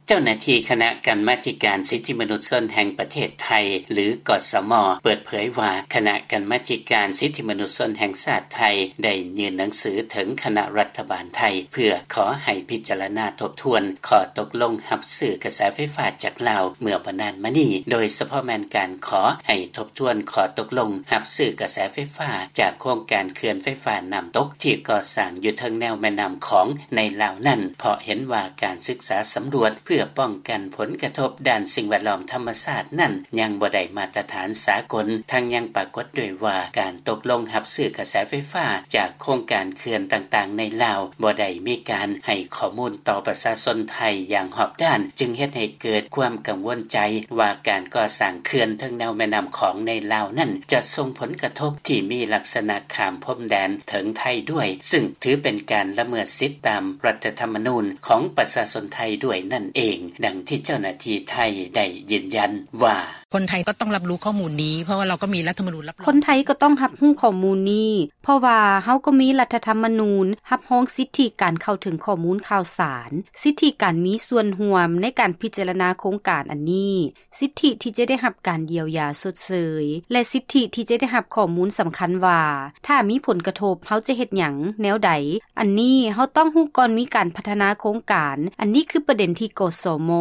ເຈົ້າໜ້າທີ່ຄະນະກຳມາທິການສິດທິມະນຸດຊົນແຫ່ງປະເທດໄທ ຫຼື ກສມ ເປີດເຜີຍວ່າ ຄະນະກຳມາທິການສິດທິມະນຸດຊົນແຫ່ງຊາດໄທ ໄດ້ຍື່ນໜັງສືເຖິງຄະນະລັດຖະບານໄທ ເພື່ອຂໍໃຫ້ພິຈາລະນາທົບທວນຂໍ້ຕົກລົງຮັບຊື້ກະແສໄຟຟ້າຈາກລາວເມື່ອບໍ່ນານມານີ້ ໂດຍສະເພາະແມ່ນການຂໍໃຫ້ທົບທວນຂໍ້ຕົກລົງຮັບຊື້ກະແສໄຟຟ້າຈາກໂຄງການເຂື່ອນໄຟຟ້ານ້ຳຕົກ ທີ່ກໍ່ສ້າງຢູ່ເທິງແນວແມ່ນ້ຳຂອງໃນລາວນັ້ນ ເພາະເຫັນວ່າການສຶກສາສຳຫຼວດເພື່ອປ້ອງກັນຜົນກະທົບດ້ານສິ່ງແວດລ້ອມທຳມະຊາດນັ້ນ ຍັງບໍ່ໄດ້ມາດຕະຖານສາກົນ, ທັງຍັງປາກົດດ້ວຍວ່າການຕົກລົງຮັບຊື້ກະແສໄຟຟ້າຈາກໂຄງການເຂື່ອນຕ່າງໆໃນລາວ ບໍ່ໄດ້ມີການໃຫ້ຂໍ້ມູນຕໍ່ປະຊາຊົນໄທຢ່າງຮອບດ້ານ, ຈຶ່ງເຮັດໃຫ້ເກີດຄວາມກັງວົນໃຈວ່າການກໍ່ສ້າງເຂື່ອນເທິງແນວແມ່ນ້ຳຂອງໃນລາວນັ້ນ ຈະສົ່ງຜົນກະທົບທີ່ມີລັກສະນະຂ້າມພົມແດນເຖິງໄທດ້ວຍ, ຊຶ່ງຖືເປັນການລະເມີດສິດຕາມລັດຖະທຳມະນູນຂອງປະຊາຊົນໄທດ້ວຍນັ້ນເອງ, ດັ່ງທີ່ເຈົ້າໜ້າທີ່ໄທໄດ້ຢືນຢັນວ່າ: ຄົນໄທກໍຕ້ອງຮັບຮູ້ຂໍ້ມູນນີ້ ເພາະວ່າເຮົາກໍມີລັດຖະທຳມະນູນຮັບຮອງ ຄົນໄທກໍຕ້ອງຮັບຮູ້ຂໍ້ມູນນີ້ ເພາະວ່າເຮົາກໍມີລັດຖະທຳມະນູນຮັບຮອງສິດທິການເຂົ້າເຖິງຂໍ້ມູນຂ່າວສານ, ສິດທິການມີສ່ວນຮ່ວມໃນການພິຈາລະນາໂຄງການອັນນີ້, ສິດທິທີ່ຈະໄດ້ຮັບການຢຽວຢາຊົດເຊີຍ ແລະ ສິດທິທີ່ຈະໄດ້ຮັບຂໍ້ມູນສຳຄັນວ່າ ຖ້າມີຜົນກະທົບເຮົາຈະເຮັດຫຍັງແນວໃດ. ອັນນີ້ເຮົາຕ້ອງຮູ້ກ່ອນມີການພັດທະນາໂຄງການ. ອັນນີ້ຄືປະເດັນທີ່ ກສມ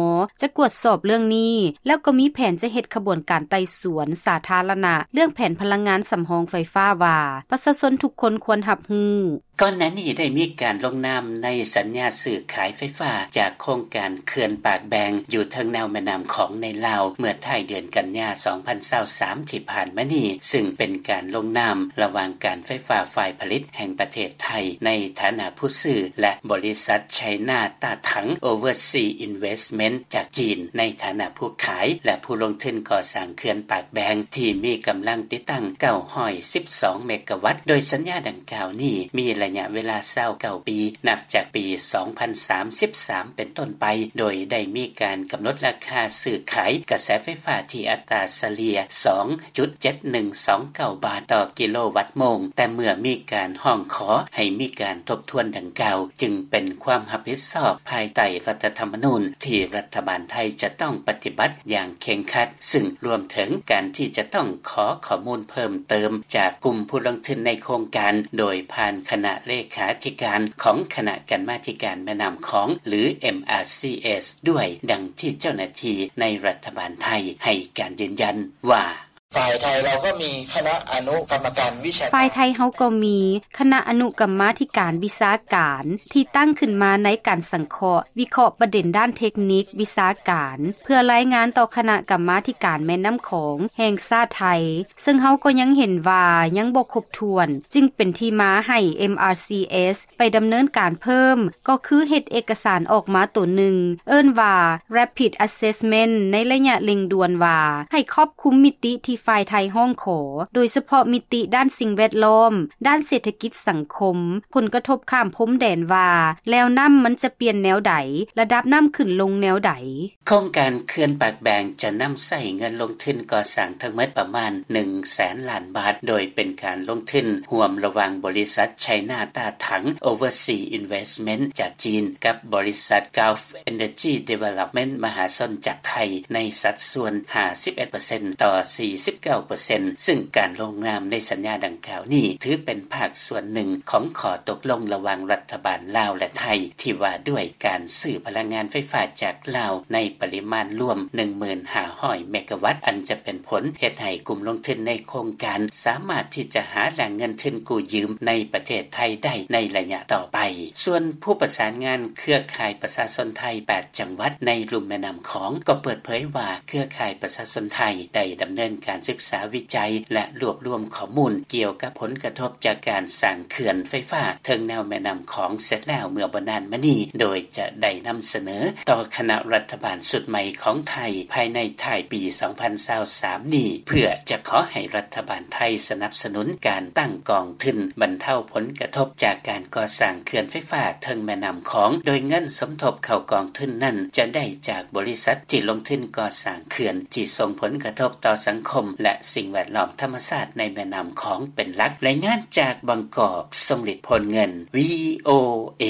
ຈະກວດສອບເລື່ອງນີ້ ແລ້ວກໍມີແຜນຈະເຮັດຂະບວນການໄຕ່ສວນສາທາລະນະເລື່ອງແຜນພະລັງງານສຳຮອງໄຟຟ້າວ່າ ປະຊາຊົນທຸກຄົນຄວນຮັບຮູ້. ກ່ອນໜ້ານີ້ໄດ້ມີການລົງນາມໃນສັນຍາຊື້ຂາຍໄຟຟ້າຈາກໂຄງການເຂື່ອນປາກແບງຢູ່ເທິງແນວແມ່ນ້ຳຂອງໃນລາວ ເມື່ອທ້າຍເດືອນກັນຍາ ສອງພັນຊາວສາມ ທີ່ຜ່ານມານີ້, ຊຶ່ງເປັນການລົງນາມລະຫວ່າງການໄຟຟ້າຝ່າຍຜະລິດແຫ່ງປະເທດໄທ ໃນຖານະຜູ້ຊື້ ແລະ ບໍລິສັດ China Tathang Overseas Investment ຈາກຈີນ ໃນຖານະຜູ້ຂາຍ ແລະ ຜູ້ລົງທຶນກໍ່ສ້າງເຂື່ອນປາກແບງ ທີ່ມີກຳລັງຕິດຕັ້ງ ເກົ້າຮ້ອຍສິບສອງ ເມກາວັດ, ໂດຍສັນຍາດັ່ງກ່າວນີ້ມີໄລຍະເວລາ ຊາວເກົ້າ ປີ ນັບຈາກປີ ສອງພັນສາມສິບສາມ ເປັນຕົ້ນໄປ, ໂດຍໄດ້ມີການກຳນົດລາຄາຊື້ຂາຍກະແສໄຟຟ້າທີ່ອັດຕາສະເລ່ຍ ສອງຈຸດເຈັດໜຶ່ງສອງເກົ້າ ບາດຕໍ່ກິໂລວັດໂມງ, ແຕ່ເມື່ອມີການຮ້ອງຂໍໃຫ້ມີການທົບທວນດັ່ງກ່າວ ຈຶ່ງເປັນຄວາມຮັບຜິດຊອບພາຍໃຕ້ລັດຖະທຳມະນູນທີ່ລັດຖະບານໄທຈະຕ້ອງປະຕິບັດຢ່າງເຄັ່ງຄັດ, ຊຶ່ງລວມເຖິງການທີ່ຈະຕ້ອງຂໍຂໍ້ມູນເພີ່ມເຕີມຈາກກຸ່ມຜູ້ລົງທຶນໃນໂຄງການ ໂດຍຜ່ານຄະນະເລຂາທິການຂອງຄະນະກຳມາທິການແມ່ນ້ຳຂອງ ຫຼື MRCS ດ້ວຍ, ດັ່ງທີ່ເຈົ້າໜ້າທີ່ໃນລັດຖະບານໄທໃຫ້ການຢືນຢັນວ່າ: ຝ່າຍໄທເຮົາກໍມີຄະນະອະນຸກຳມະການວິຊາການ ຝ່າຍໄທເຮົາກໍມີຄະນະອະນຸກຳມາທິການວິຊາການທີ່ຕັ້ງຂຶ້ນມາໃນການສັງເຄາະ ວິເຄາະປະເດັນດ້ານເທັກນິກວິຊາການ ເພື່ອລາຍງານຕໍ່ຄະນະກຳມາທິການແມ່ນ້ຳຂອງແຫ່ງຊາດໄທ, ເຊິ່ງເຮົາກໍຍັງເຫັນວ່າຍັງບໍ່ຄົບຖ້ວນ, ຈຶ່ງເປັນທີ່ມາໃຫ້ MRCS ໄປດຳເນີນການເພີ່ມ ກໍຄືເຮັດເອກະສານອອກມາໂຕໜຶ່ງ ເອີ້ນວ່າ Rapid Assessment ໃນໄລຍະເລັ່ງດ່ວນວ່າ ໃຫ້ຄອບຄຸມມິຕິທີ່ຝ່າຍໄທຮ້ອງຂໍ, ໂດຍສະເພາະມິຕິດ້ານສິ່ງແວດລ້ອມ, ດ້ານເສດຖະກິດສັງຄົມ, ຜົນກະທົບຂ້າມພົມແດນວ່າ ແລວນ້ຳມັນຈະປ່ຽນແນວໃດ, ລະດັບນ້ຳຂຶ້ນລົງແນວໃດ. ໂຄງການເຂື່ອນປາກແບງຈະນຳໃຊ້ເງິນລົງທຶນກໍ່ສ້າງທັງໝົດປະມານ ໜຶ່ງແສນລ້ານບາດ, ໂດຍເປັນການລົງທຶນຮ່ວມລະຫວ່າງບໍລິສັດ China Tathang Overseas Investment ຈາກຈີນ ກັບບໍລິສັດ Gulf Energy Development ມະຫາຊົນຈາກໄທ ໃນສັດສ່ວນ ຫ້າສິບເອັດເປີເຊັນ ຕໍ່ ສີ່ສິບເກົ້າເປີເຊັນ ຊຶ່ງການລົງນາມໃນສັນຍາດັ່ງກ່າວນີ້ ຖືເປັນພາກສ່ວນໜຶ່ງຂອງຂໍ້ຕົກລົງລະຫວ່າງລັດຖະບານລາວ ແລະ ໄທ ທີ່ວ່າດ້ວຍການຊື້ພະລັງງານໄຟຟ້າຈາກລາວໃນປະລິມານລວມ ໜຶ່ງໝື່ນຫ້າຮ້ອຍ ເມກາວັດ, ອັນຈະເປັນຜົນເຮັດໃຫ້ກຸ່ມລົງທຶນໃນໂຄງການສາມາດທີ່ຈະຫາແຫຼ່ງເງິນທຶນກູ້ຢືມໃນປະເທດໄທໄດ້ໃນໄລຍະຕໍ່ໄປ. ສ່ວນຜູ້ປະສານງານເຄືອຂ່າຍປະຊາຊົນໄທ ແປດ ຈັງຫວັດໃນລຸ່ມແມ່ນ້ຳຂອງ ກໍເປີດເຜີຍວ່າ ເຄືອຂ່າຍປະຊາຊົນໄທໄດ້ດຳເນີນການສຶກສາວິໄຈ ແລະ ລວບລວມຂໍ້ມູນກ່ຽວກັບຜົນກະທົບຈາກການສ້າງເຂື່ອນໄຟຟ້າເທິງແນວແມ່ນ້ຳຂອງເສັດແລ້ວເມື່ອບໍ່ນານມານີ້, ໂດຍຈະໄດ້ນຳສະເໜີຕໍ່ຄະນະລັດຖະບານຊຸດໃໝ່ຂອງໄທ ພາຍໃນທ້າຍປີ ສອງພັນຊາວສາມ ນີ້ ເພື່ອຈະຂໍໃຫ້ລັດຖະບານໄທສະໜັບສະໜູນການຕັ້ງກອງທຶນບັນເທົາຜົນກະທົບຈາກການກໍ່ສ້າງເຂື່ອນໄຟຟ້າເທິງແມ່ນ້ຳຂອງ, ໂດຍເງິນສົມທົບເຂົ້າກອງທຶນນັ້ນຈະໄດ້ຈາກບໍລິສັດທີ່ລົງທຶນກໍ່ສ້າງ ເຂື່ອນທີ່ສົ່ງຜົນກະທົບຕໍ່ສັງຄົມ ແລະ ສິ່ງແວດລ້ອມທຳມະຊາດໃນແມ່ນ້ຳຂອງເປັນຫຼັກ. ລາຍງານຈາກບາງກອກ, ຊົງລິດ ໂພນເງິນ, ວີໂອເອ.